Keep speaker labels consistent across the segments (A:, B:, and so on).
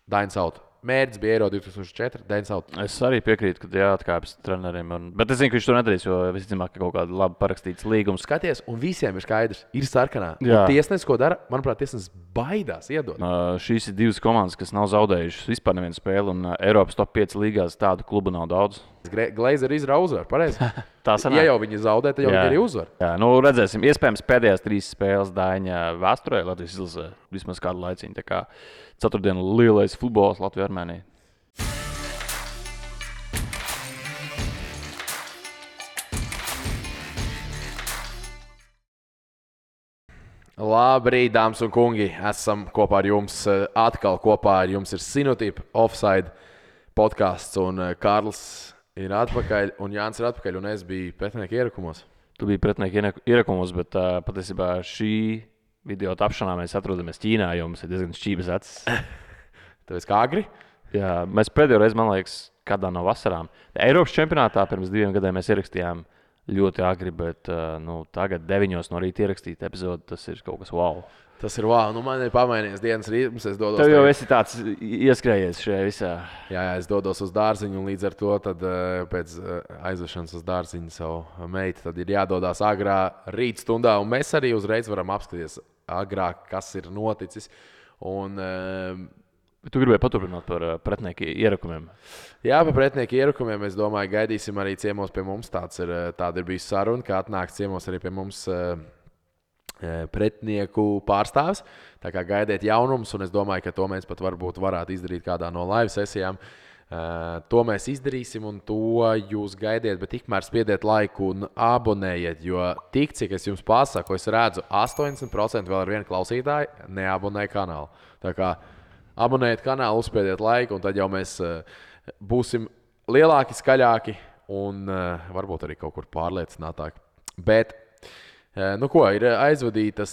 A: Dainis Out. Mērķis bija Eiro 2004, Dainis Out.
B: Es arī piekrītu, ka jāatkāpjas treneriem. Bet es zinu, ka viņš to nedarīs, jo visticamāk, ka kaut kāda labi parakstīts līgums.
A: Skaties, un visiem ir skaidrs, ir sarkanā.
B: Jā.
A: Tiesnesis, ko dara, manuprāt, tiesnesis baidās iedot.
B: Šīs ir divas komandas, kas nav zaudējušas vispār nevienu spēli, un Eiropas top 5 līgās tādu klubu nav daudz.
A: Glazer izrauga uzvaru, pareizi?
B: Tā sanāk.
A: Ja jau viņi zaudē, tad jau viņi arī uzvar.
B: Jā, nu redzēsim. Iespējams, pēdējās 3 spēles Daiņa vēsturē Latvijas izlasē vismaz kādu laiciņu. Tā kā ceturtdienu lielais futbols Latvijā-Armēnijā.
A: Labrīt, dāmas un kungi! Esam kopā ar jums. Atkal kopā ar jums ir Sinotipa Offside podcasts. Un Kārlis ir atpakaļ, un Jānis ir atpakaļ, un es biju pretinieku ierakumos.
B: Tu biji pretinieku ierakumos, bet patiesībā šī video tapšanā mēs atrodamies Ķīnā, jo mums ir diezgan šķības acis.
A: Tāpēc kā agri?
B: Jā, mēs pēdējo reizi, man liekas, kādā no vasarām. Eiropas čempionātā pirms 2 gadiem mēs ierakstījām ļoti agri, bet tagad 9 no rīta ierakstīt epizodi, tas ir kaut kas wow.
A: Tas ir wow. Nu, man ir pamainījies dienas rītums, es dodos.
B: Tev jau esi tāds ieskrējies šajā visā.
A: Jā, es dodos uz dārziņu, un līdz ar to tad, pēc aizvešanas uz dārziņu savu meitu, tad ir jādodās agrā rīt stundā, un mēs arī uzreiz varam apskatīties agrāk, kas ir noticis. Un,
B: tu gribēji paturpināt par pretinieku ierakumiem?
A: Jā, par pretinieku ierakumiem. Es domāju, gaidīsim arī ciemos pie mums. Tāda ir bijusi saruna, ka atnāks ciemos arī pie mums pretinieku pārstāvis. Tā kā gaidiet jaunumus, un es domāju, ka to mēs pat varētu izdarīt kādā no live sesijām. To mēs izdarīsim, un to jūs gaidiet, bet tikmēr spiediet laiku un abonējiet, jo tik, cik es jums pasaku, es redzu, 80% vēl ar vienu klausītāju neabonē kanālu. Tā kā abonējiet kanālu, uzspiediet laiku, un tad jau mēs būsim lielāki, skaļāki un varbūt arī kaut kur pārliecinātāki. Bet, ir aizvadītas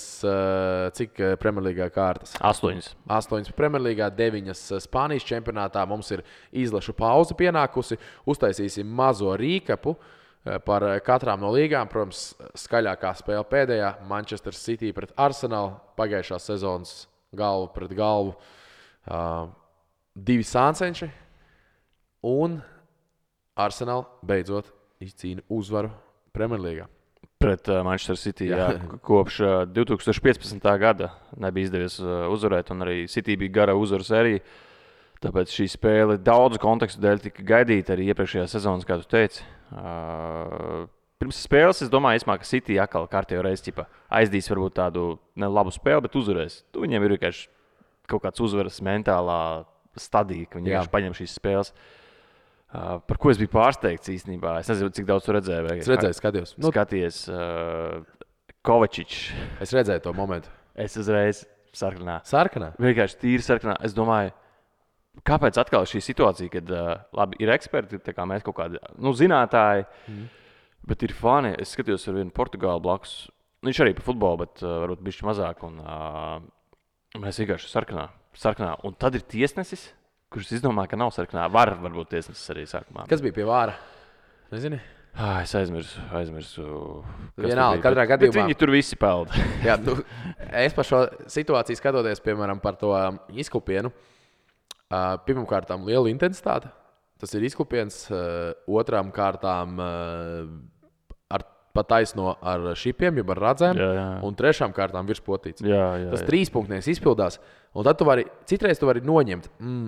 A: cik Premjerlīgā kārtas?
B: 8.
A: 8 Premjerlīgā, 9 Spānijas čempionātā. Mums ir izlašu pauze pienākusi. Uztaisīsim mazo rīkapu par katrām no līgām. Protams, skaļākā spēle pēdējā – Manchester City pret Arsenal. Pagājušās sezonas galvu pret galvu. 2 sāncenši. Un Arsenal beidzot izcīna uzvaru Premjerlīgā.
B: Pret Manchester City, jā. Kopš 2015. gada nebija izdevies uzvarēt, un arī City bija gara uzvaru sērija. Tāpēc šī spēle daudzu kontekstu dēļ tika gaidīta arī iepriekšējā sezonas, kā tu teici. Pirms spēles es domāju, ka City atkal kārtējo reizi aizdīs varbūt tādu nelabu spēli, bet uzvarēs. Viņiem ir vienkārši kaut kāds uzvaras mentālā stadija, ka viņi vienkārši paņem šīs spēles. Par ko es biju pārsteigts īstenībā. Es nezinu, cik daudz tu redzēji.
A: Es redzēju, skatījos.
B: Skaties, Kovačičs.
A: Es redzēju to momentu.
B: Es uzreiz sarkanā.
A: Sarkanā?
B: Vienkārši tīri sarkanā. Es domāju, kāpēc atkal šī situācija, kad labi, ir eksperti, tā kā mēs kaut kādi zinātāji, bet ir fani. Es skatījos ar vienu Portugālu blakus. Viņš arī par futbolu, bet varbūt bišķi mazāk. Un mēs vienkārši sarkanā. Un tad ir tiesnesis, kurš izdomā, ka nav sarkanā. Varbūt tiesnesis arī sarkanā.
A: Kas bija pie vāra? Nezini?
B: Es aizmirsu.
A: Vienalga, katrā gadījumā.
B: Bet viņi tur visi peld.
A: Jā, es par šo situāciju skatoties, piemēram, par to izklupienu. Pirmkārtām liela intensitāte. Tas ir izklupiens. Otrām kārtām pat taisno ar šipiem, jeb ar radzēm.
B: Jā.
A: Un trešām kārtām virspotīts.
B: Jā.
A: Tas 3-punktnieks izpildās. Un tad citreiz tu vari noņemt.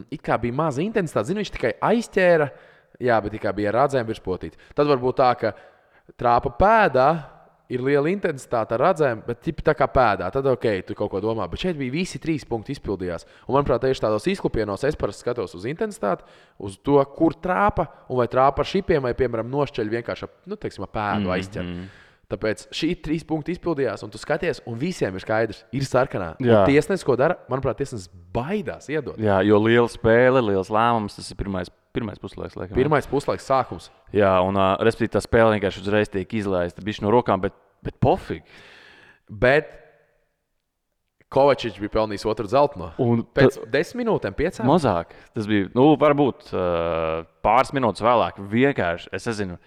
A: It kā bija maza intensitāte. Zini, viņš tikai aizķēra. Jā, bet tikai bija radzēm virspotīts. Tad varbūt tā, ka trāpa pēdā ir liela intensitāte ar radzēm, bet tā kā pēdā. Tad tu kaut ko domā. Bet šeit bija visi 3 punkti izpildījās. Un manuprāt, tieši tādos izklupienos es parasti skatos uz intensitāti, uz to, kur trāpa, un vai trāpa ar šipiem, vai, piemēram, nošķeļ vienkārši pēdu aizķer. Tāpēc šī 3 punkti izpildījās, un tu skaties, un visiem ir skaidrs, ir sarkanā. Tiesnesis, ko dara, manuprāt, tiesnesis baidās iedot.
B: Jā, jo liela spēle, liels lēmums, tas ir pirmais puslaiks. Laikam.
A: Pirmais puslaiks sākums.
B: Jā, un respektīvi tā spēle vienkārši uzreiz tiek izlaista bišķi no rokām, bet pofīgi.
A: Bet Kovačičs bija pelnījis otru zeltaino. Pēc 10 minūtēm, 5.
B: Mazāk. Tas bija, varbūt pāris minūtes vēlāk. Vienkārši, es nezinu,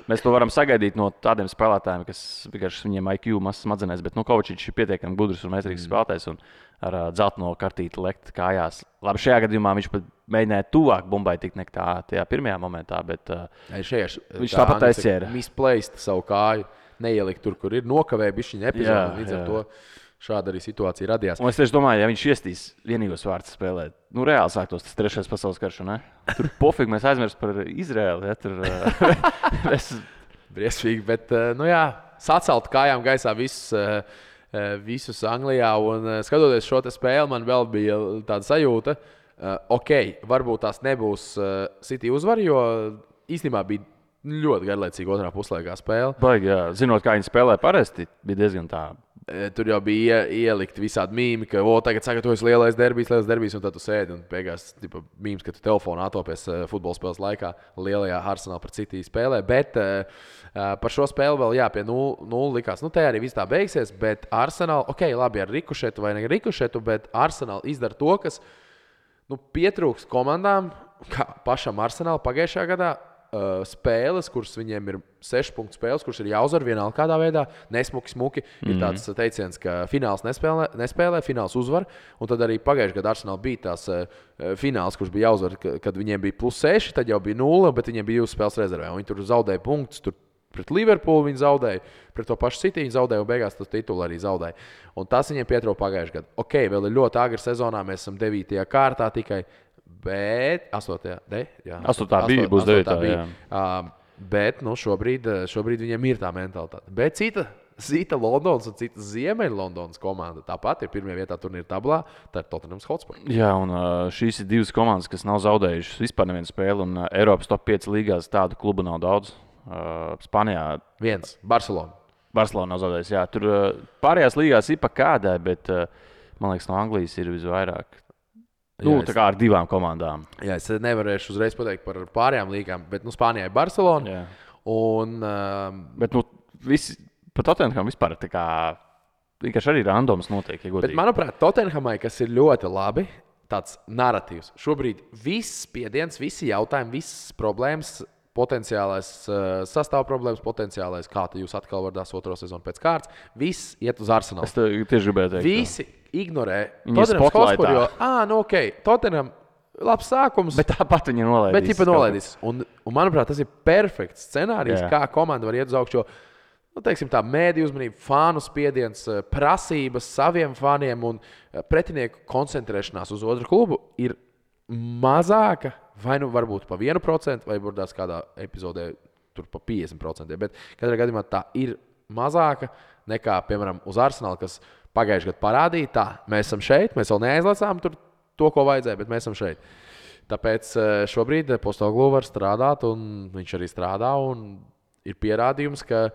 B: Mēs to varam sagaidīt no tādiem spēlētājiem, kas vienkārši viņiem IQ mazs smadzenēs, bet Kovačičs ir pietiekami gudrs un meistarīgs spēlētājs un ar dzelteno kartīti lekt kājās. Labi, šajā gadījumā viņš pat mēģināja tuvāk bumbai tikt nekā tajā pirmajā momentā, bet viņš tāpat aizķēra.
A: Misplaced savu kāju, neielikt tur, kur ir nokavēja bišķiņa epizodi, līdz ar to. Šāda arī situācija radījās.
B: Un es tieši domāju, ja viņš iestīs vienīgos vārdus spēlēt, reāli sāktos tas 3. pasaules karš, ne? Tur pofīgi mēs aizmirst par Izraēlu, ja? Tur
A: briesmīgi, bet, sacelt kājām gaisā visus Anglijā, un skatoties šo te spēli, man vēl bija tāda sajūta, varbūt tās nebūs City uzvar, jo īstenībā bija ļoti garlaicīga otrā puslaikā spēle.
B: Baigi, jā. Zinot, kā viņi spēlē parasti, bija diezgan tā.
A: Tur jau bija ielikt visādi mīmi, ka tagad sagatavojas lielais derbijs, un tad tu sēdi un beigās mīms, ka tu telefonā atopies futbola spēles laikā lielajā Arsenal pret City spēlē. Bet par šo spēli vēl pie 0 likās. Te arī viss tā beigsies, bet Arsenal, labi ar rikušetu vai ne rikušetu, bet Arsenal izdara to, kas pietrūks komandām, kā pašam Arsenal pagājušajā gadā. Spēles, kuras viņiem ir 6 punktu spēles, kuras ir jāuzvar vienalga kādā veidā, nesmuki. Ir tāds teiciens, ka fināls nespēlē, fināls uzvar. Un tad arī pagājušajā gadā Arsenal bija tās fināls, kurš bija jāuzvar, kad viņiem bija +6, tad jau bija 0, bet viņiem bija 2 spēles rezervē. Viņi tur zaudēja punktus, tur pret Liverpoolu viņi zaudēja, pret to pašu City viņi zaudēja un beigās tas titulu arī zaudēja. Un tas viņiem pietrūka pagājušajā gadā. Vēl ir ļoti agri sezonā, mēs esam 9. kārtā tikai. Bet 8.
B: būs 9.
A: Bet šobrīd viņiem ir tā mentalitāte. Bet cita Londonas un cita Ziemeļlondonas komanda tāpat ir pirmajā vietā turnīra tablā. Tā ir Tottenham Hotspur.
B: Jā, un šīs ir 2 komandas, kas nav zaudējušas vispār nevienu spēli. Un Eiropas top 5 līgās tādu klubu nav daudz. Spānijā
A: 1. Barcelona.
B: Barcelona nav zaudējusi. Jā, tur pārējās līgās ir pa kādai, bet man liekas, no Anglijas ir visvairāk. Tā kā ar 2 komandām.
A: Jā, es nevarēšu uzreiz pateikt par pārējām līgām, bet Spānijā ir Barcelona.
B: Jā.
A: Un,
B: bet visi par Tottenham vispār tā kā vienkārši arī randoms notiek.
A: Bet, manuprāt, Tottenhamai, kas ir ļoti labi, tāds narratīvs. Šobrīd viss spiediens, visi jautājumi, visas problēmas, potenciālais sastāv problēmas, potenciālais, kā jūs atkal varat 2. sezonu pēc kārtas, viss iet uz Arsenalu.
B: Es tieši gribēju teikt.
A: Visi ignorē Tottenham Hotspur, jo, Tottenham labs sākums.
B: Bet tāpat viņi
A: nolaidīs. Un, manuprāt, tas ir perfekts scenārijs, kā komanda var iet uz augšu. Tā mēdīju uzmanība, fānu spiediens, prasības saviem fāniem un pretinieku koncentrēšanās uz otru klubu ir mazāka, vai varbūt pa 1%, vai varbūt kādā epizodē tur pa 50%. Bet katrā gadījumā tā ir mazāka nekā, piemēram, uz Arsenalu, kas pagājušajā gadā parādīja, mēs esam šeit, mēs vēl neaizlacām to, ko vajadzēja, bet mēs esam šeit. Tāpēc šobrīd Postecoglou var strādāt, un viņš arī strādā, un ir pierādījums, ka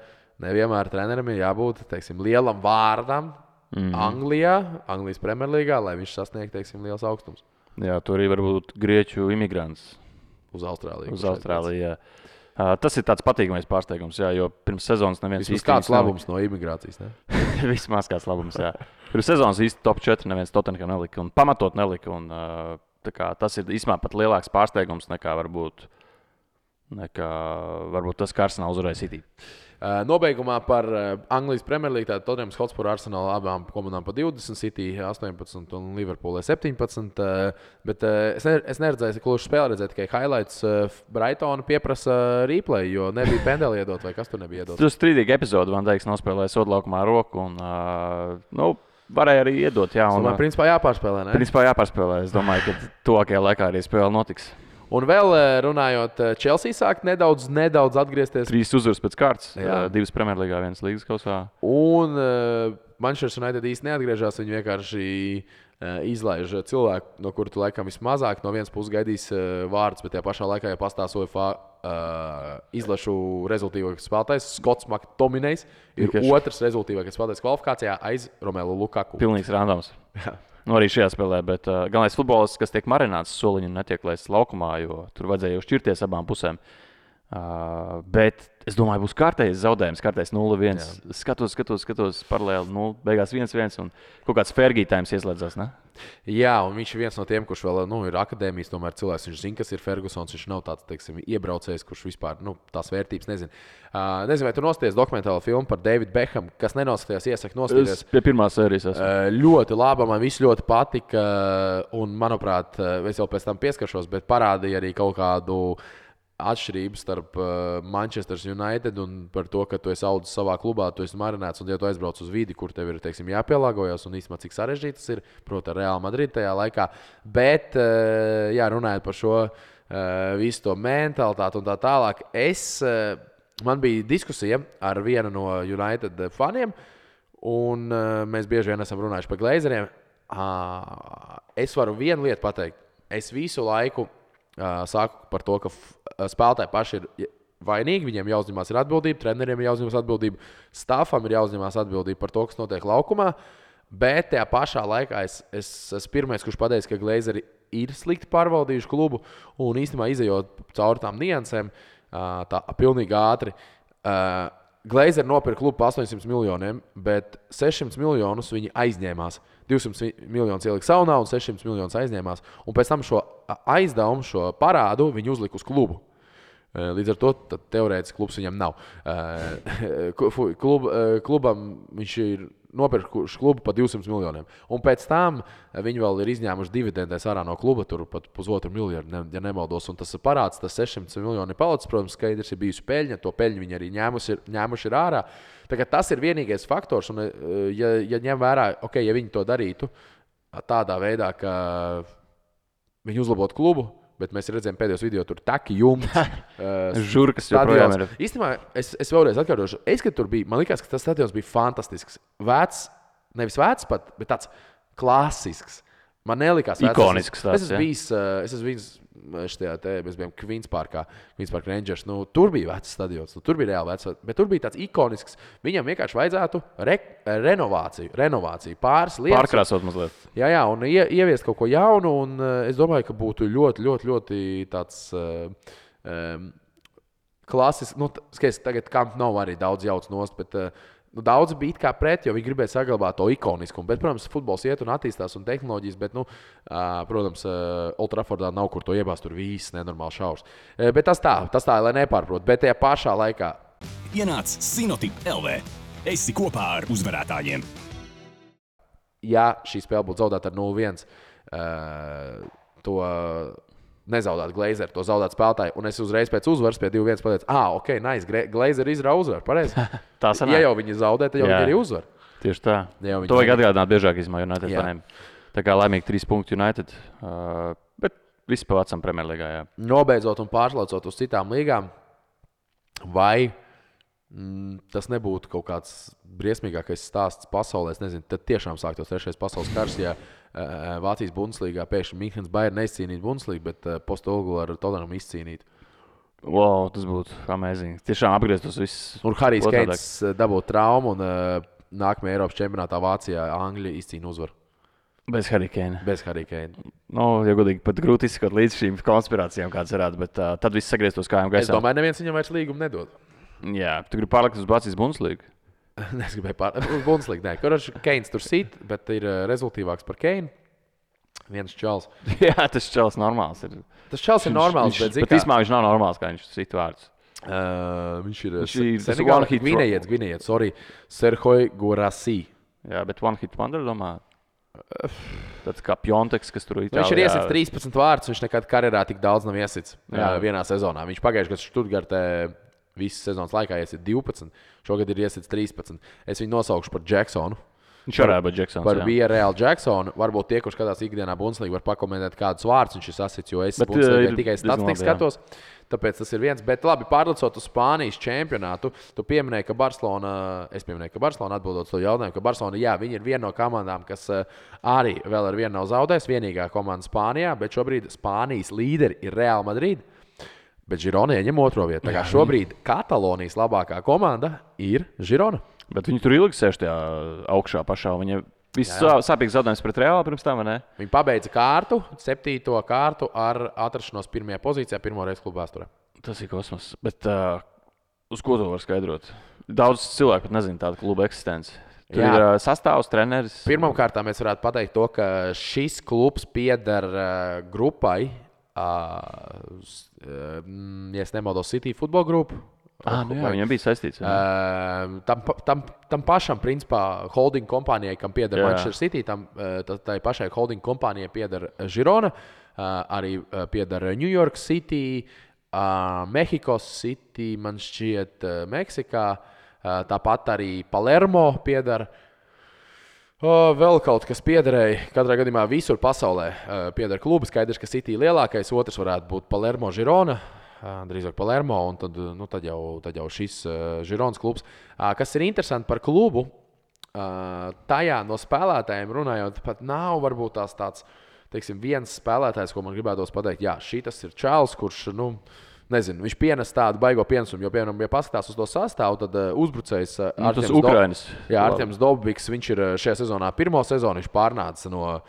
A: nevienmēr trenerim ir jābūt, lielam vārdam Anglijas Premjerlīgā, lai viņš sasniegtu, liels augstums.
B: Jā, tur arī var būt grieķu imigrants.
A: Uz Austrāliju.
B: Jā. Tas ir tāds patīkamais pārsteigums, jā, jo pirms sezonas neviens
A: īsti kāds labums no imigrācijas, ne?
B: Vismaz kāds labums, jā. Pirms sezonas īsti top 4 neviens Tottenham nelika un pamatot nelika. Un, tas ir īstenībā pat lielāks pārsteigums nekā varbūt tas, ka Arsenal uzvarēja City.
A: Nobeigumā par Anglijas Premjerlīgu, tātad Tottenham Hotspur Arsenal abām komandām pa 20, City 18 un Liverpool 17. Bet es neredzēju, kluši spēli redzēju tikai highlights. Brightona pieprasa replay, jo nebija pendeli iedot, vai kas tur nebija iedot.
B: Tas strīdīgi epizode, Van Dijks nospēlēja sodlaukumā roku un, varēja arī iedot. Jā, un,
A: principā jāpārspēlē, ne?
B: Principā jāpārspēlē. Es domāju, ka tuvākajā laikā arī spēle notiks.
A: Un vēl runājot, Chelsea sāk nedaudz atgriezties.
B: 3 uzvaras pēc kārtas, 2 Premjerlīgā, 1 līgas kausā.
A: Un Manchester United īsti neatgriežas, viņi vienkārši izlaiž cilvēku, no kura tu laikam vismazāk no vienas puses gaidīs vārdus, bet tajā pašā laikā, ja pastāv UEFA izlašu rezultīvākais spēlētājs, Skots McTominejs ir otrs rezultīvākais spēlētājs kvalifikācijā aiz Romelu Lukaku.
B: Pilnīgs randoms. Arī šajā spēlē, bet galvenais futbolists, kas tiek marināts soliņu un netiek laists laukumā, jo tur vajadzēja jau šķirties abām pusēm. Bet es domāju, būs kārtējs zaudējums, kārtējs 0-1. Skatos paralēli 0, beigās 1-1 un kaut kāds Fergie-tājums ieslēdzās, ne?
A: Jā, un viņš ir viens no tiem, kurš vēl ir akadēmijas, tomēr cilvēks. Viņš zina, kas ir Fergusons. Viņš nav tāds, teiksim, iebraucējs, kurš vispār tās vērtības nezina. Nezinu, vai tu noskaties dokumentālo filmu par Davidu Beckhamu, kas nenoskatījās, iesaku noskatīties.
B: Es pie pirmās sērijas esmu.
A: Ļoti laba, man viss ļoti patika. Un, manuprāt, es jau pēc tam pieskaršos, bet parādīja arī kaut kādu atšķirību starp Manchester United un par to, ka tu esi audzis savā klubā, tu esi marinēts un ja tu aizbrauc uz vidi, kur tev ir, teiksim, jāpielāgojas un īstenībā cik sarežģīti tas ir, proti, ar Real Madrid tajā laikā. Bet, jā, runājot par šo visu to mentalitāti un tā tālāk, man bija diskusija ar vienu no United faniem, un mēs bieži vien esam runājuši par Glazeriem. Es varu vienu lietu pateikt. Es visu laiku sāku par to, ka spēlētāji paši ir vainīgi, viņiem jāuzņemās ir atbildība, treneriem ir jāuzņemās atbildība, stāfam ir jāuzņemās atbildība par to, kas notiek laukumā, bet tajā pašā laikā es esmu pirmais, kurš pateica, ka Glazeri ir slikti pārvaldījuši klubu un īstenībā izejot cauri tām niansēm, tā pilnīgi ātri. Glazeri nopirka klubu par 800 miljoniem, bet 600 miljonus viņi aizņēmās. 200 miljonus ielika saunā un 600 miljonus aizņēmās. Un pēc tam šo aizdevumu, šo parādu viņi uzlika uz klubu. Līdz ar to teorētiski klubs viņam nav. Klubam viņš ir nopirkuši klubu par 200 miljoniem. Un pēc tam viņi vēl ir izņēmuši dividendēs ārā no kluba, tur pat $1,5 miljardu, ja nemaldos. Un tas parāds, tas 600 miljoni ir palicis, protams, skaidrs ir bijusi peļņa, to peļņu viņi arī ņēmuši ir ārā. Tas ir vienīgais faktors, un ja ņem vērā, ja viņi to darītu tādā veidā, ka viņi uzlabotu klubu, bet mēs redzējām pēdējos video, tur taki jumts.
B: Žurkas joprojām ir.
A: Īstenībā es vēlreiz atkārtošu. Kad tur bija, man likās, ka tas stadions bija fantastisks. Vecs, nevis vecs pat, bet tāds klasisks. Man nelikās vecs.
B: Ikonisks tāds,
A: es esmu bijis mēs bijām Queens Park Rangers. Tur bija vecs stadions, tur bija reāli vecs, bet tur bija tāds ikonisks. Viņam vienkārši vajadzētu renovāciju, pāris lietas.
B: Pārkrāsot mazliet.
A: Jā, un ieviest kaut ko jaunu, un es domāju, ka būtu ļoti, ļoti, ļoti tāds klasisks. Skaties, tagad Camp Nou arī daudz jauc nost, bet daudz bija kā pret, jo viņi gribēja saglabāt to ikoniskumu. Bet, protams, futbols iet un attīstās un tehnoloģijas, bet, protams, Old Traffordā nav kur to iebāzt, tur viss nenormāli šaurs. Bet tas tā, lai nepārprot. Bet tajā pašā laikā
C: ienāc Sinotip LV. Esi kopā ar uzvarētājiem.
A: Ja šī spēle būtu zaudēta ar 0-1, to nezaudēt Glazeri, to zaudēt spēlētāji. Un es uzreiz pēc uzvaras pie 2-1 pateicu, ok, nice, Glazeri izrauga uzvaru, pareizi.
B: Tā sanāk.
A: Ja jau viņi zaudē, tad jau viņi arī uzvar.
B: Tieši tā. To vajag atgādināt biežāk izmā United faniem. Tā kā laimīgi 3 punkti United, bet viss pa vecam Premjerlīgā, jā.
A: Nobeidzot un pārslaucot uz citām līgām, vai tas nebūtu kaut kāds briesmīgākais stāsts pasaulē, es nezinu, tad tiešām sāktos 3. pasaules kars, ja Vācijas Bundeslīgā pēkšņi Minhenes Bayern neizcīnītu Bundeslīgu, bet Postolgu ar Tottenham izcīnītu.
B: Wow, tas būtu amazing. Tiešām apgrieztos viss.
A: Un Harijs Keins dabūtu traumu un nākamajā Eiropas čempionātā Vācijā Anglija izcīna uzvaru.
B: Bez Harija Keina.
A: Ja
B: godīgi, pat grūti izskot līdz šīm konspirācijām, kāds varētu, bet tad viss sagrieztos kājām gaisā.
A: Es domāju, neviens viņam vairs līgumu nedod.
B: Jā, tu gribi pārlikt uz Vācijas Bundeslīgu?
A: Es gribēju pārlikt uz Bundeslīgu, nē. Kurš Keins tur sit, bet ir rezultīvāks par Keinu. Viens čals.
B: Jā, tas čals normāls ir.
A: Tas čals ir normāls, bet
B: īstenībā viņš nav normāls, kā viņš sit vārds.
A: Viņš ir Gvinējietis, Serhoj Gorasī.
B: Jā, bet one hit wonder, domā. Tāds kā Pjonteks, kas tur Itālijā.
A: Viņš ir iesits 13 vārdus, viņš nekad karjerā tik daudz nav iesits vienā sezonā. Viņš pagājušajā gadā Stuttgartē visas sezonas laikā iesit 12, šogad ir iesits 13. Es viņu nosaukšu par Jacksonu.
B: Viņš varētu būt Jacksons.
A: Par Villarreal Jacksonu. Varbūt tie, kurš skatās ikdienā Bundeslīgu, var pakomentēt kādus vārdus viņš ir sasits, jo es Bundeslīgai tikai statistiku skatos. Tāpēc tas ir viens. Bet labi, pārlicot uz Spānijas čempionātu, tu pieminēji, ka Barcelona atbildot to jautājumu, ka Barcelona, jā, viņi ir viena no komandām, kas arī vēl ar vienu nav zaudējis, vienīgā komanda Spānijā, bet šobrīd Spānijas līderi ir Real Madrid. Bet Girona ieņem otro vietu. Tā kā šobrīd Katalonijas labākā komanda ir Girona.
B: Bet viņi tur ilgi sēž tajā augšā pašā. Viņa viss sāpīgs zaudējums pret Reālu pirms tam, vai ne?
A: Viņi pabeidza kārtu, 7. kārtu ar atrašanos 1. pozīcijā, pirmo reizi klubu vēsturē.
B: Tas ir kosmos. Bet uz ko to var skaidrot? Daudz cilvēku pat nezina tādu klubu eksistenci. Tur ir sastāvs, treneris.
A: Pirmkārt, mēs varētu pateikt to, ka šis klubs pieder grupai, ja nemaldos, City futbola grupu.
B: Viņam bija saistīts.
A: Tam pašam, principā, holding kompānijai, kam pieder Manchester City, tai pašai holding kompānijai pieder Girona, arī pieder New York City, Mexico City, man šķiet, Meksikā. Tāpat arī Palermo pieder. Vēl kaut kas piederēja. Katrā gadījumā visur pasaulē pieder klubi. Skaidrs, ka City lielākais, otrs varētu būt Palermo Girona. Drīzāk Palermo, un tad jau šis Gironas klubs. Kas ir interesanti par klubu, tajā no spēlētājiem runājot, pat nav varbūt tāds, teiksim, viens spēlētājs, ko man gribētos pateikt, šitas ir čāls, kurš, nezinu, viņš pienes tādu baigo pienesumu, jo, piemēram, ja paskatās uz to sastāvu, tad uzbrucējs Artiems Dobiks, viņš ir šajā sezonā pirmo sezonu, viņš pārnāca no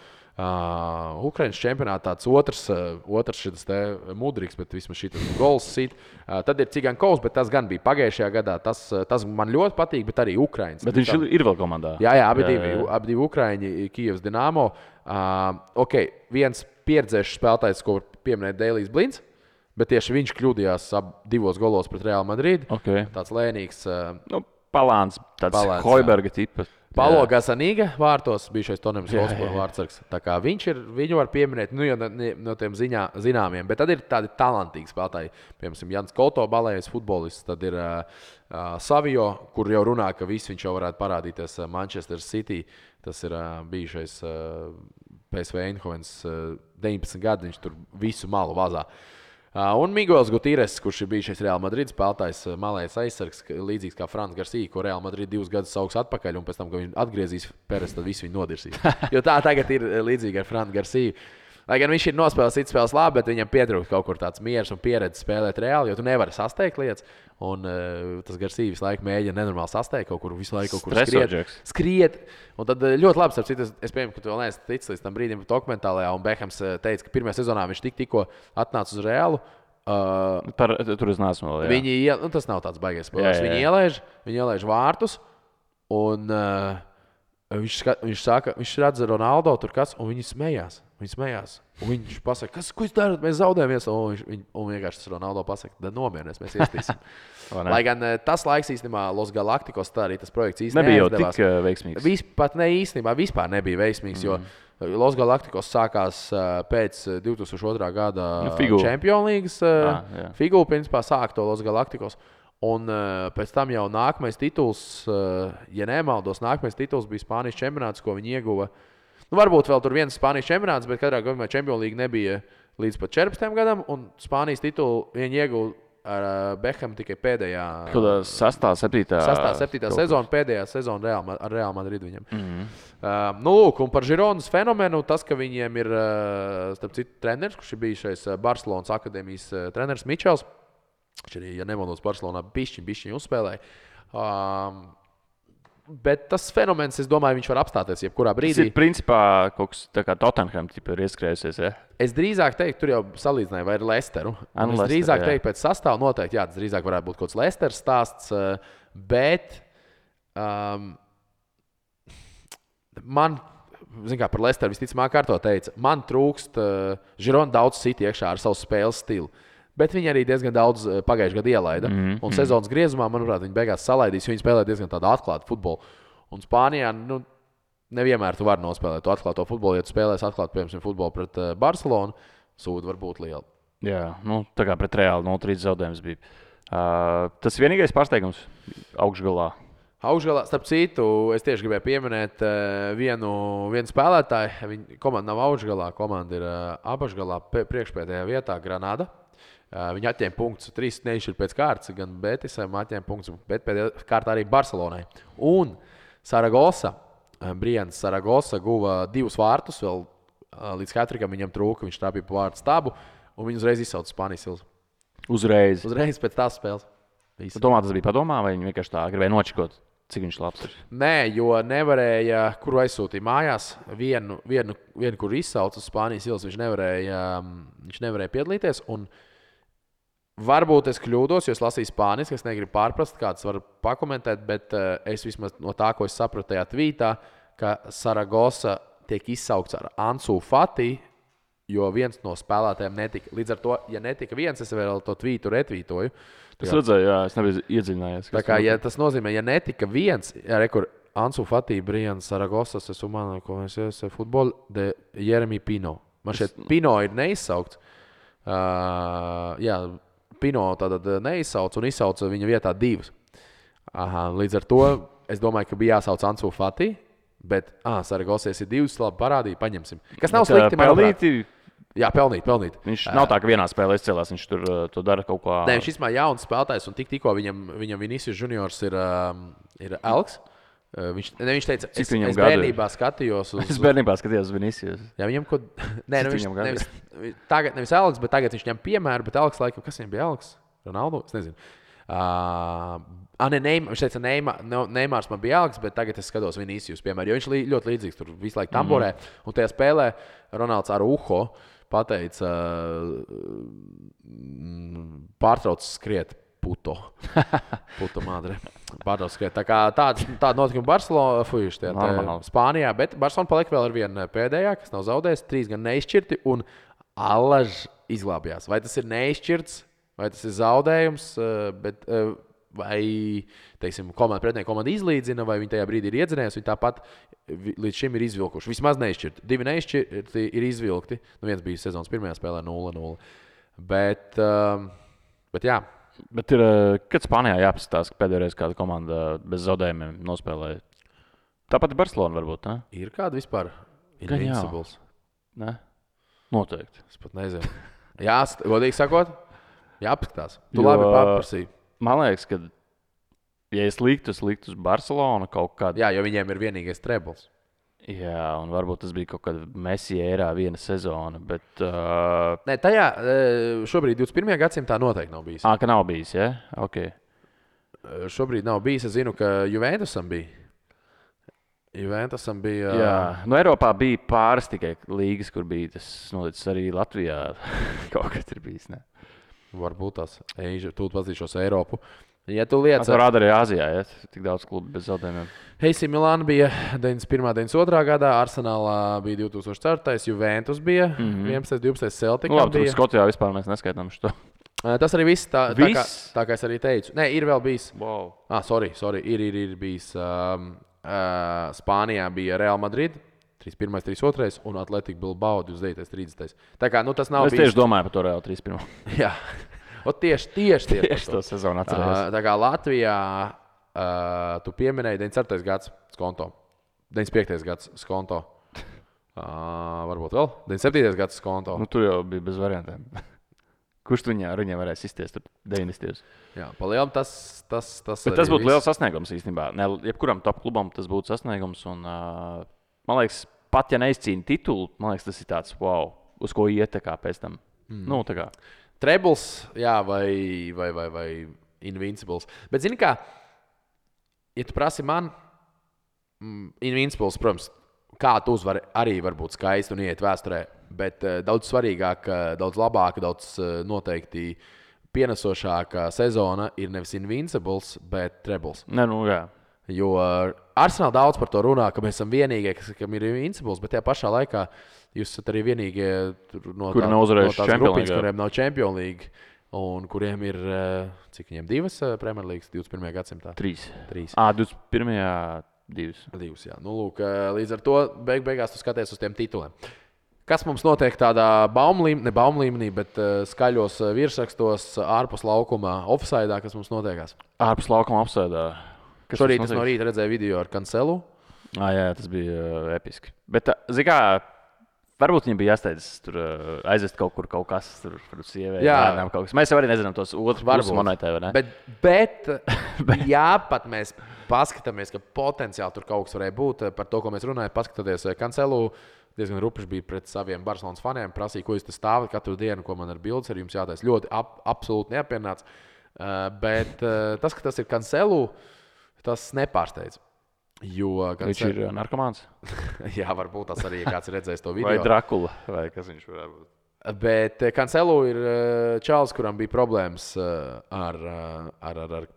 A: Ukrainas čempionātā, tāds otrs šitas te Mudriks, bet vismaz šitas gols sit. Tad ir Cigankovs, bet tas gan bija pagājušajā gadā, tas man ļoti patīk, bet arī Ukrainas.
B: Bet viņš ir vēl komandā.
A: Jā, abi divi Ukraiņi, Kijevs Dinamo. Viens pieredzējušs spēlētājs, ko pieminēja Deilijs Blinds. Bet tieši viņš kļūdījās divos golos pret Real Madrid. Tāds lēnīgs.
B: Palāns, tāds Hoiberga tipa.
A: Paulo Gazzaniga vārtos, bijušais Tonems Hotspur vārdsargs. Tā kā viņu var pieminēt, no tiem zināmiem. Bet tad ir tādi talantīgi spēlētāji. Piemēram, Jans Koto, balējais futbolists. Tad ir Savio, kur jau runā, ka viņš jau varētu parādīties Manchester City. Tas ir bijušais PSV Eindhovens 19 gadi. Viņš tur visu malu vazā. Un Miguels Gutierrez, kurš ir bijušais Real Madrid spēlētājs, malējais aizsargs, līdzīgs kā Frans Garcia, ko Real Madrid 2 gadus sauks atpakaļ, un pēc tam, kad viņš atgriezīs Peres, tad visu viņu nodirsīs. Jo tā tagad ir līdzīga ar Frans Garcia. Lai gan viņš ir nospēlējis citas spēles labi, bet viņam pietrūkst kaut kur tāds miers un pieredze spēlēt reāli, jo tu nevari sasteigt lietas. Un tas Garcia visu laiku mēģina nenormāli sasteigt, kaut kur visu laiku skriet. Un tad ļoti labi, starp citu, es pieņemu, ka tu vēl neesi ticis līdz tam brīdim dokumentālajā, un Bekhams teica, ka pirmajā sezonā viņš tikko atnāca uz Realu.
B: Tur es neesmu vēl.
A: Tas nav tāds baigais spēlētājs. Viņi ielaiž vārtus, un viņš redz Ronaldo tur kas, un viņi smējās. Un viņš pasaka, ko jūs darat, mēs zaudējamies. Un vienkārši tas Ronaldo pasaka, tad nomierinies, mēs iestīsim. Lai gan tas laiks īstenībā Los Galacticos, tā arī tas projekts īstenībā
B: nebija jau tik veiksmīgs.
A: Vispār nebija veiksmīgs, jo Los Galacticos sākās pēc 2002. Gada Champions League. Figūra principā sāk to Los Galacticos. Un pēc tam jau nākamais tituls, ja nemaldos, nākamais tituls bija Spānijas čempionāts, ko viņi ieguva. Varbūt vēl tur viens Spānijas čempionāts, bet katrā gadījumā Champions League nebija līdz pat 14 gadam, un Spānijas titulu viņi ieguva ar Bekham tikai pēdējā.
B: 6. 7.
A: sezona, pēdējā sezona ar Real Madrid viņam. Lūk, un par Gironas fenomenu, tas, ka viņiem ir, starp citu, treneris, kurš ir bijušais Barcelonas akadēmijas treneris Mičels. Viņš arī, ja nemaldos, Barcelonā bišķiņ uzspēlēja. Bet tas fenomens, es domāju, viņš var apstāties jebkurā brīdī.
B: Tas ir principā kaut kas tā kā Tottenham ir ieskrējusies, ja?
A: Es drīzāk teiktu, tur jau salīdzināju vai ar Lesteru. Es drīzāk teiktu pēc sastāvu noteikti, tas drīzāk varētu būt kaut kāds Lesteras stāsts, bet man, zin kā, par Lesteru visticamāk kārto teica, man trūkst Girona daudz sit iekšā ar savu spēles stilu. Bet viņi arī diezgan daudz pagājušajā gadā ielaida. Un sezonas griezumā, manuprāt, viņi beigās salaidīs, jo viņi spēlē diezgan tādu atklātu futbolu. Un Spānijā nevienmēr tu vari nospēlēt to atklāto futbolu. Ja tu spēlēsi atklātu, piemēram, futbolu pret Barcelonu, sūda var būt liela.
B: Jā, tā kā pret Reāli 0-3 zaudējums bija. Tas vienīgais pārsteigums augšgalā.
A: Starp citu, es tieši gribēju pieminēt vienu spēlētāju. Viņa komanda nav augšgalā, komanda ir apakšgalā, priekšpēdējā vietā Granada. Viņi atņēma punktus, 3 nešķir pēc kārtas, gan Betisam atņēma punktus, bet pēdējā kārtā arī Barcelonai. Un Saragosa, Brians Saragosa guva 2 vārtus, vēl līdz hatrikam viņam trūka, viņš trāpīja pa vārtu stabu, un viņi uzreiz izsauca Spānijas ilzu. Uzreiz pēc tās spēles.
B: Domā, tas bija padomā, vai viņi vienkārši tā gribēja nočikot, cik viņš labs ir?
A: Nē, jo nevarēja, kuru aizsūtīja mājās, vienu kur izsauca uz Spānijas ilzu, viņš nevarēja piedalīties, un Varbūt es kļūdos, jo es lasīju spāniski, es negribu pārprast, kāds var pakomentēt, bet es vismaz no tā, ko es sapratu tajā tvītā, ka Saragosa tiek izsaukts ar Ansu Fati, jo viens no spēlētājiem netika. Līdz ar to, ja netika viens, es vēl to tvītu retvītoju.
B: Es redzēju, jā, es nebiju iedziļinājies.
A: Tā kā, ja tas nozīmē, ja netika viens, rekur Ansu Fati, Brian Saragosas, es umano, ko es esmu futbol de Jeremy Pino. Man šeit Pino ir neizsaukts. Jā, Pino tātad neizsauc un izsauc viņa vietā divus. Līdz ar to es domāju, ka bija jāsauc Ansu Fati, bet Saragosas ir divas, labi parādīja, paņemsim. Kas nav slikti,
B: pelnīti.
A: Jā, pelnīt.
B: Viņš nav tā, ka vienā spēlē izcēlās, viņš tur to dara kaut kā.
A: Nē, viņš īstenībā jauns spēlētājs, un tikko viņam Vinicius Juniors ir Elks. Viņš teica, es bērnībā skatījos uz...
B: Es bērnībā skatījos uz Vinicius.
A: Jā, viņam ko... Nē, nevis Elks, bet tagad viņš ņem piemēru, bet Elks laikam, kas viņam bija Elks? Ronaldo? Es nezinu. Viņš teica, Neimārs man bija Elks, bet tagad es skatos Vinicius, piemēram, jo viņš ļoti līdzīgs tur visu laiku tamborē. Un tajā spēlē Ronalds Araujo pateica, pārtrauc skriet puto madre. Pārtrauc skriet. Tā kā tāda notikuma Barcelonā, Spānijā, bet Barcelona palika vēl ar vienu pēdējā, kas nav zaudējis, 3 gan neizšķirti, un Alaž izglābjās. Vai tas ir neizšķirts, vai tas ir zaudējums, bet... vai, teiksim, pretinieka komanda izlīdzina, vai viņi tajā brīdī ir iedzinējusi, viņi tāpat līdz šim ir izvilkuši. Vismaz neizšķirti. 2 neizšķirti ir izvilkti. Viens bija sezonas pirmajā spēlē 0-0. Bet jā.
B: Bet kad Spānijā jāpaskatās, ka pēdējo reizi kāda komanda bez zaudējumiem nospēlēja? Tāpat ir Barcelona varbūt, ne?
A: Ir kāda vispār invincibles?
B: Ne? Noteikti.
A: Es pat nezinu. Jā, godīgi sakot, jāpaskatās. Tu labi paprasīji.
B: Man liekas, ka, ja es liktu uz Barcelonu kaut kādu...
A: Jā, jo viņiem ir vienīgais trebles.
B: Jā, un varbūt tas bija kaut kāda Messi ērā viena sezona, bet...
A: Nē, tajā šobrīd 21. gadsimtā noteikti nav bijis.
B: Ka nav bijis, ja? Ok.
A: Šobrīd nav bijis. Es zinu, ka Juventusam bija.
B: Jā, no Eiropā bija pāris tikai līgas, kur bija tas noticis arī Latvijā. Kaut kas ir bijis, ne?
A: Varbūt tās tu pazīšos Eiropu. Ja tu lietas...
B: Tas rāda arī Āzijā, ja? Tik daudz klubu bez zaudējumiem.
A: AC Milāna bija 91. 92. gadā, Arsenālā bija 2004. Juventus bija 11. 12. Celticam
B: labi,
A: bija.
B: Tur Skotijā vispār mēs neskaitām šo.
A: Tas arī viss, tā kā es arī teicu. Nē, ir vēl bijis.
B: Wow.
A: Sorry. Ir bijis. Spānijā bija Real Madrid. 31. 32. un Atletico Bilbao 29. 30. Tā kā, tas nav bijis.
B: Es tieši domāju par to Real 31.
A: Jā, tieši
B: to sezonu atcerējos.
A: Tā kā Latvijā tu pieminēji 94. gads skonto, 95. gads skonto, varbūt vēl 97. gads skonto.
B: Tur jau bija bez variantiem. Kurš tu viņiem varēs izties tur 90.
A: Jā, palielam tas
B: bet tas būtu liels sasniegums īstenībā. Ne, jebkuram top klubam tas būtu sasniegums un, man liekas, pat ja neizcīna titulu, man liekas, tas ir tāds, wow, uz ko iet tā kā pēc tam. Tā kā.
A: Trebles, jā, vai Invincibles. Bet zini kā, ja tu prasi man, Invincibles, protams, kā tu uzvari arī var būt skaisti un iet vēsturē, bet daudz svarīgāka, daudz labāka, daudz noteikti pienesošāka sezona ir nevis Invincibles, bet Trebles.
B: Ne, jā.
A: Jo Arsenal daudz par to runā, ka mēs esam vienīgie, kam ir Invincibles, bet tajā pašā laikā jūs esat arī vienīgie
B: kuri nav uzvarējuši
A: Champions League, kuriem nav Champions League un kuriem ir, cik viņiem 2 Premier Leagues 21. gadsimtā?
B: 3. 21. 2.
A: 2, jā. Lūk, līdz ar to beigās tu skaties uz tiem tituliem. Kas mums notiek tādā baumlīmenī, bet skaļos virsrakstos ārpus laukuma offsideā, kas mums notiekās?
B: Ārpus laukuma offsideā.
A: Šorīt es no rīta redzēju video ar Cancelu.
B: Jā, tas bija episki. Bet, zini kā, varbūt viņam bija jāsteidz tur aizvest kaut kur kaut kas, tur sievē, bērnām kaut kas. Mēs jau arī nezinām tos otru pusi monētē, vai ne?
A: Bet jā, pat mēs paskatāmies, ka potenciāli tur kaut kas varēja būt. Par to, ko mēs runājam, paskatoties Cancelu, diezgan rupiši bija pret saviem Barcelonas faniem, prasīja, ko jūs te stāvat katru dienu, ko man ar bildes ar jums jātais. Ļoti absolūti neapmierināts. Bet tas, ka tas ir Cancelu, tas nepārsteidz.
B: Viņš ir narkomāns?
A: Jā, varbūt tas arī kāds ir redzējis to video.
B: Vai Drakula, vai kas viņš varētu būt?
A: Bet Cancelo ir čalis, kuram bija problēmas ar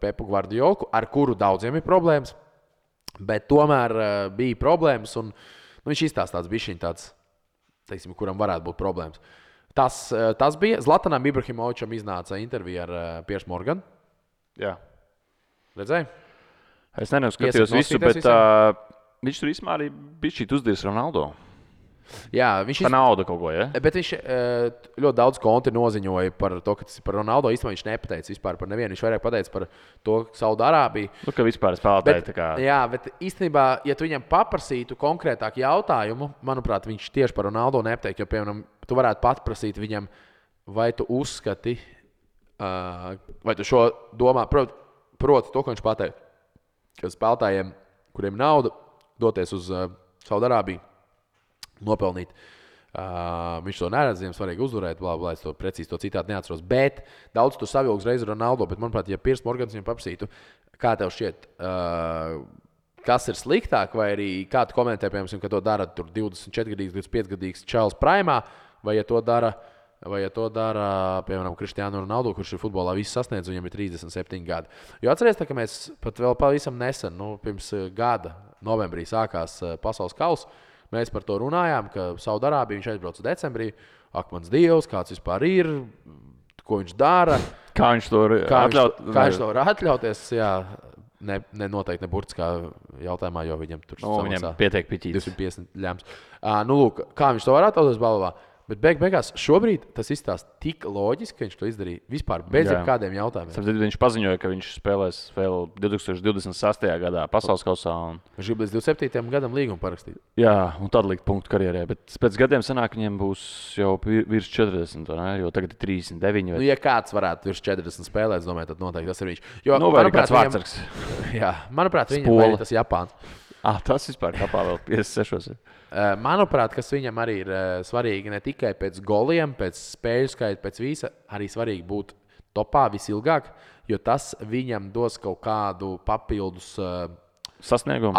A: Pepu Guardiolu, ar kuru daudziem ir problēmas. Bet tomēr bija problēmas, un viņš izstāsta tāds bišķiņ tāds, teiksim, kuram varētu būt problēmas. Tas bija Zlatanam Ibrahimovičam iznāca intervija ar Piersu Morganu.
B: Jā.
A: Redzēji?
B: Es neskatījos visu, bet viņš tur īstenībā arī bija šī uzdies Ronaldo.
A: Jā, viņš
B: par naudu kaut ko, ja?
A: Bet viņš ļoti daudz konti noziņoja par to, ka tas ir par Ronaldo. Īstenībā viņš nepateica vispār par nevienu. Viņš vairāk pateica par to, ka Saudārābija.
B: Nu, ka vispār spēlētāji tā kā.
A: Jā, bet īstenībā, ja tu viņam paprasītu konkrētāku jautājumu, manuprāt, viņš tieši par Ronaldo nepateikt. Jo, piemēram, tu varētu paprasīt viņam, vai tu uzskati, vai tu šo domā, proti to, ko viņš pateica. Ka spēlētājiem, kuriem nauda, doties uz Saudārābiju, nopelnīt. Viņš to neredz, viņam svarīgi uzvarēt, blā, es to precīzi to citāti neatceros. Bet daudz tu savilgs reizi Ronaldo, bet, manuprāt, ja Piers Morgans viņam paprasītu, kā tev šķiet, kas ir sliktāk, vai arī kā tu komentē, piemēram, ka to dara 24-gadīgs, 25-gadīgs čalis primā, vai ja to dara, piemēram, Cristiano Ronaldo, kurš ir futbolā visu sasniedz, viņam ir 37 gadi. Jo atceries, ka mēs pat vēl pavisam nesen, pirms gada novembrī sākās pasaules kauss, mēs par to runājām, ka Saudārābija viņš aizbrauca decembrī. Ak, mans Dievs, kāds vispār ir, ko viņš dara.
B: Kā viņš to
A: var atļauties, jā. Noteikti ne burtiskā jautājumā, jo viņam tur
B: viņam pietiek piķītis.
A: 250 ļems. Lūk, kā viņš to var atļauties balvā. Bet beigās šobrīd tas izstāsta tik loģiski, ka viņš to izdarīja vispār bez jebkādiem jautājumiem.
B: Viņš paziņoja, ka viņš spēlēs vēl 2028. gadā pasaules kausā.
A: Viņš grib līdz 27. gadam līgumu parakstīt.
B: Jā, un tad likt punktu karjerē. Bet pēc gadiem sanāk, viņiem būs jau virs 40, ne? Jo tagad ir 39.
A: Ja kāds varētu virs 40 spēlēt, es domāju, tad noteikti tas ir viņš. Jo,
B: vai kāds vārdsargs.
A: Jā, manuprāt, viņam ir tas Japāns.
B: Tas vispār kapā vēl 56.
A: Manuprāt, kas viņam arī ir svarīgi ne tikai pēc goliem, pēc spēļu skaita, pēc visa, arī svarīgi būt topā visilgāk, jo tas viņam dos kaut kādu papildus
B: sasniegumu,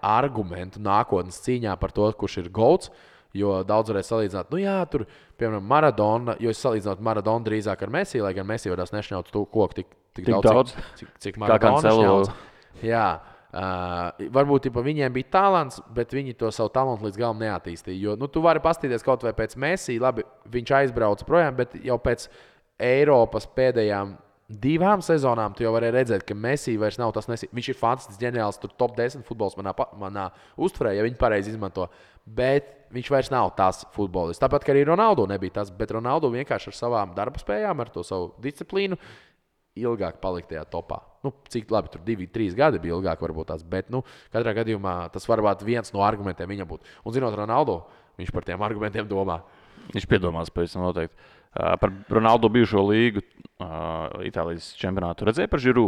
A: argumentu nākotnes cīņā par to, kurš ir golds. Jo daudz varēs salīdzināt, tur, piemēram, Maradona, jo es salīdzinātu Maradonu drīzāk ar Messi, lai gan Messi varēs nešņaut to koku tik daudz, cik Maradona šņauc. Jā. Varbūt viņiem bija talants, bet viņi to savu talantu līdz galam neattīstīja. Jo tu vari paskatīties kaut vai pēc Messi, labi, viņš aizbrauca projām, bet jau pēc Eiropas pēdējām 2 sezonām tu jau vari redzēt, ka Messi vairs nav tas Messi. Viņš ir fantastisks ģeniāls, tur top 10 futbols manā uztverē, ja viņi pareizi izmanto. Bet viņš vairs nav tas futbolists. Tāpat, ka arī Ronaldo nebija tas, bet Ronaldo vienkārši ar savām darba spējām, ar to savu disciplīnu ilgāk palikt tajā topā. Cik labi, tur 2-3 gadi bija ilgāk varbūt tās, bet katrā gadījumā tas varbūt viens no argumentiem viņam būtu. Un zinot Ronaldo, viņš par tiem argumentiem domā.
B: Viņš piedomās pavisam noteikti. Par Ronaldo bijušo līgu Itālijas čempionātu redzēja par Žiru?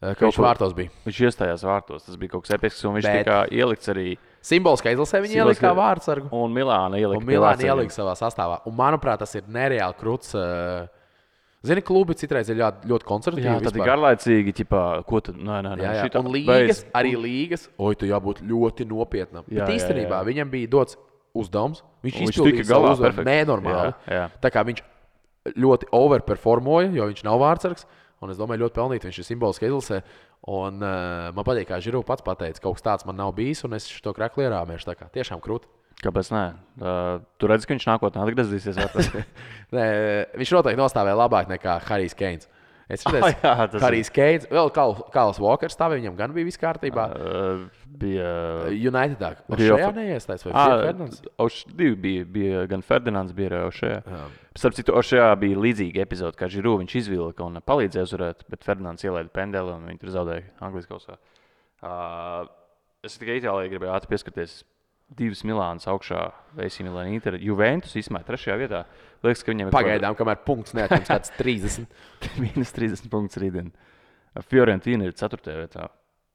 A: Ka viņš vārtos bija.
B: Viņš iestājās vārtos, tas bija kaut kas episks, un viņš tika ielikts arī.
A: Simboliskā izlasē viņa ielika kā vārdsargu.
B: Un Milāna ielika
A: savā sastāvā. Un manuprāt, tas ir nereāli kruts. Zini, klubi citreiz ir ļoti konservatīvi.
B: Jā, tad ir garlaicīgi, ko tad, nē.
A: Jā. Un līgas, arī līgas, tu jābūt ļoti nopietnam. Bet īstenībā viņam bija dots uzdevums, viņš izpildīja savu uzdevumu nenormāli.
B: Jā.
A: Tā kā viņš ļoti overperformoja, jo viņš nav vārdsargs, un es domāju, ļoti pelnīt, viņš ir simboliski izlasē. Un man patīk, kā Žiru pats pateica, kaut kas tāds man nav bijis, un es šo krakli ierāmēšu, tā kā tiešām krūti.
B: Kāpēc nē? Tu redzi, ka viņš nākotnē atgriezīsies?
A: Nē, viņš noteikti nostāvēja labāk nekā Harijs Keins. Es redzēju, Harijs Keins, vēl Kāls Walkers stāvēja, viņam gan bija viss kārtībā.
B: Bija
A: Unitedā. Šajā neiestājas vai Ferdinands?
B: Bija gan Ferdinands, bija arī Ošajā. Starp citu, Ošajā bija līdzīga epizode, kā Žiru viņš izvilka un palīdzēja uzvarēt, bet Ferdinands ielaida pendeli un viņi tur zaudēja Anglijas kausā. Es tikai Itālijai gribēju ātri pieskarties. 2 Milānas augšā, AC Milāna Inter, Juventus izmēja 3. vietā. Liekas, ka viņam ir
A: pagaidām, kamēr punkts neatņems kāds 30.
B: Minus 30 punktus rītdien. Fiorentina ir 4. vietā.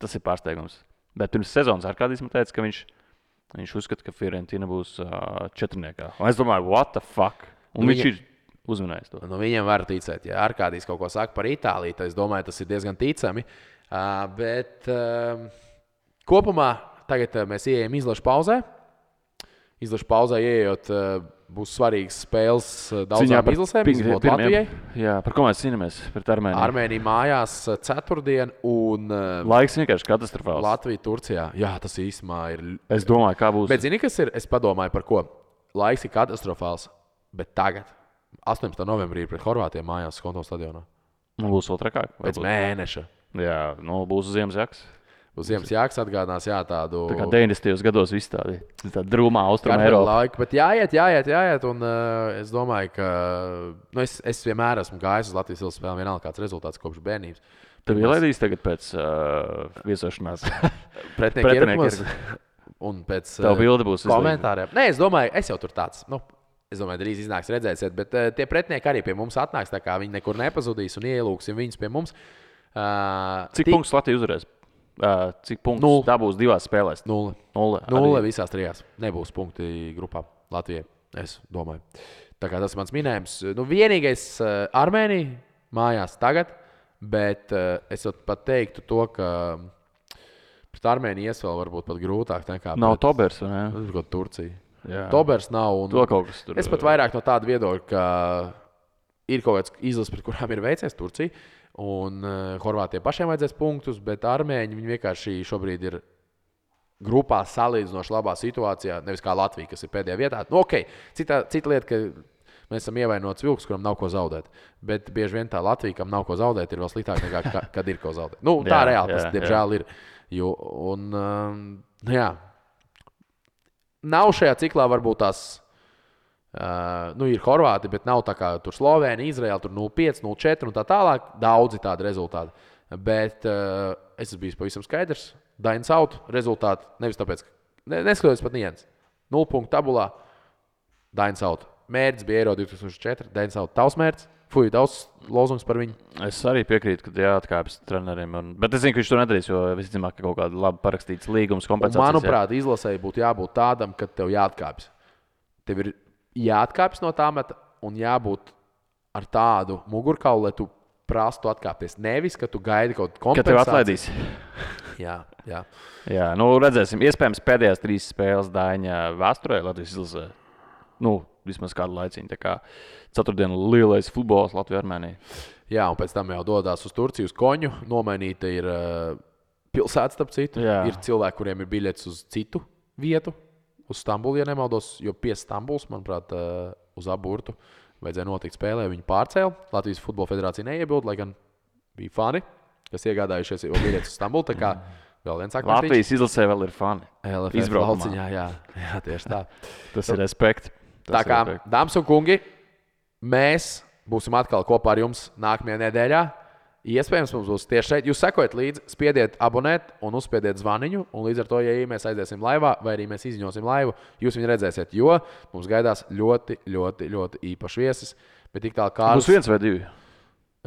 B: Tas ir pārsteigums. Bet pirms sezonas Arkādijs man teica, ka viņš uzskata, ka Fiorentina būs 4. Un es domāju, what the fuck? Un viņš ir uzmanējis to.
A: Viņam var ticēt, ja Arkādijs kaut ko saka par Itāliju, tad es domāju, tas ir diezgan ticami. Bet kopumā tagad mēs ieejam izlašu pauzē. Izlašu pauzē ieejot, būs svarīgas spēles daudzām izlasēm, izņemot Latvijai.
B: Jā, par ko mēs cīnāmies pret Armēniju?
A: Armēnija mājās ceturtdien un
B: Laiks vienkārši katastrofāls.
A: Latvija Turcijā. Jā, tas īstenībā ir.
B: Es domāju, kā būs.
A: Bet zini, kas ir? Es padomāju par ko. Laiks ir katastrofāls, bet tagad, 18. novembrī pret Horvātiem mājās Skonto stadionā.
B: Būs vēl trakāk.
A: Pēc mēneša.
B: Jā, būs Ziemassvētku.
A: Uz Ziemassvētku atgādinās, tādu.
B: Tā kā 90. gados viss tāda drūmā austruma Eiropa.
A: Laika, bet jāiet. Un es domāju, ka es vienmēr esmu gājis uz Latvijas izlases spēlēm, vienalga kāds rezultāts kopš bērnības.
B: Tev ielaidīs tagad pēc viesošanās?
A: Pretinieki ir. Un pēc komentāriem. Nē, es domāju, es jau tur tāds. Es domāju, drīz iznāks redzēsiet, bet tie pretinieki arī pie mums atnāks, tā kā viņi nekur nepazudīs un ielūksim viņus pie mums.
B: Cik punktus Latvija uzvarēs? Cik punktus dabūs divās spēlēs?
A: 0 visās trijās. Nebūs punkti grupā Latvijai, es domāju. Tā kā tas ir mans minējums. Vienīgais Armēnija mājās tagad, bet es pat teiktu to, ka pret Armēniju ies vēl varbūt pat grūtāk nekā
B: nav Tobers, vai ne?
A: Tas ir Turcija.
B: Jā.
A: Tobers nav.
B: To kaut kas tur.
A: Es pat vairāk no tāda viedokļa, ka ir kaut kāds izlases, pret kurām ir veicies Turcija. Un Horvātiem pašiem vajadzēs punktus, bet Armēņi vienkārši šobrīd ir grupā salīdzinoši labā situācijā. Nevis kā Latvija, kas ir pēdējā vietā. Cita lieta, ka mēs esam ievainots vilks, kuram nav ko zaudēt. Bet bieži vien tā Latvija, kam nav ko zaudēt, ir vēl sliktāk nekā kad ir ko zaudēt. Tā reāli tas, diemžēl, ir. Nav šajā ciklā varbūt tās. Ir Horvāti, bet nav tā kā tur Slovēnija, Izraela, tur 0-5, 0-4 un tā tālāk. Daudzi tādi rezultāti. Bet es esmu bijis pavisam skaidrs. Dainis Out rezultāti nevis tāpēc, ka neskatoties pat niens. 0 punktu tabulā. Dainis Out. Mērķis bija Eiro 2004. Dainis Out tavs mērķis. Daudz lozungs par viņu.
B: Es arī piekrītu, ka jāatkāpjas treneriem. Bet es zinu, ka viņš to nedarīs, jo visticamāk, ka kaut kāda labi parakstīts līgums kompensācijas.
A: Manuprāt, izlasēji būtu jābūt tādam, ka tev jāatkāpjas. Tev ir jāatkāpjas no tā meta un jābūt ar tādu mugurkaulu, lai tu prastu atkāpties. Nevis, ka tu gaidi kaut kādu kompensāciju.
B: Ka tev atlaidīs.
A: Jā,
B: redzēsim. Iespējams, pēdējās 3 spēles Daiņa vēsturē Latvijas izlasē. Vismaz kādu laiciņu. Tā kā ceturtdiena lielais futbols Latvija-Armēnija.
A: Jā, un pēc tam jau dodās uz Turciju, uz Koņu. Nomainīta ir pilsēta, starp citu. Jā. Ir cilvēki, kuriem ir biļets uz citu vietu. Uz Stambulu, ja nemaldos, jo pie Stambulas, manuprāt, uz aburtu vajadzēja notikt spēlē. Viņi pārcēla. Latvijas Futbola Federācija neiebilda, lai gan bija fani, kas iegādājušies jau biļetes uz Stambulu. Tā kā vēl viens akmens.
B: Latvijas izlasē vēl ir fani.
A: Izbraukumā. Jā, tieši tā.
B: Tas ir respekt.
A: Tā kā, dāmas un kungi, mēs būsim atkal kopā ar jums nākamajā nedēļā. Iespējams, mums būs tieši šeit. Jūs sekojat līdzi, spiediet abonēt un uzspiediet zvaniņu. Un līdz ar to, ja mēs aiziesim laivā vai arī mēs izņosim laivu, jūs viņu redzēsiet, jo mums gaidās ļoti, ļoti, ļoti īpašs viesis. Bet tik tālu kā
B: būs 1 vai 2?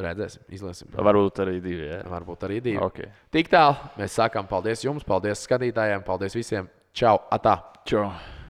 A: Redzēsim, izlēsim.
B: Varbūt arī 2. Jā.
A: Varbūt arī 2.
B: Okay.
A: Tik tālu mēs sakām paldies jums, paldies skatītājiem, paldies visiem. Čau, atā!
B: Čau!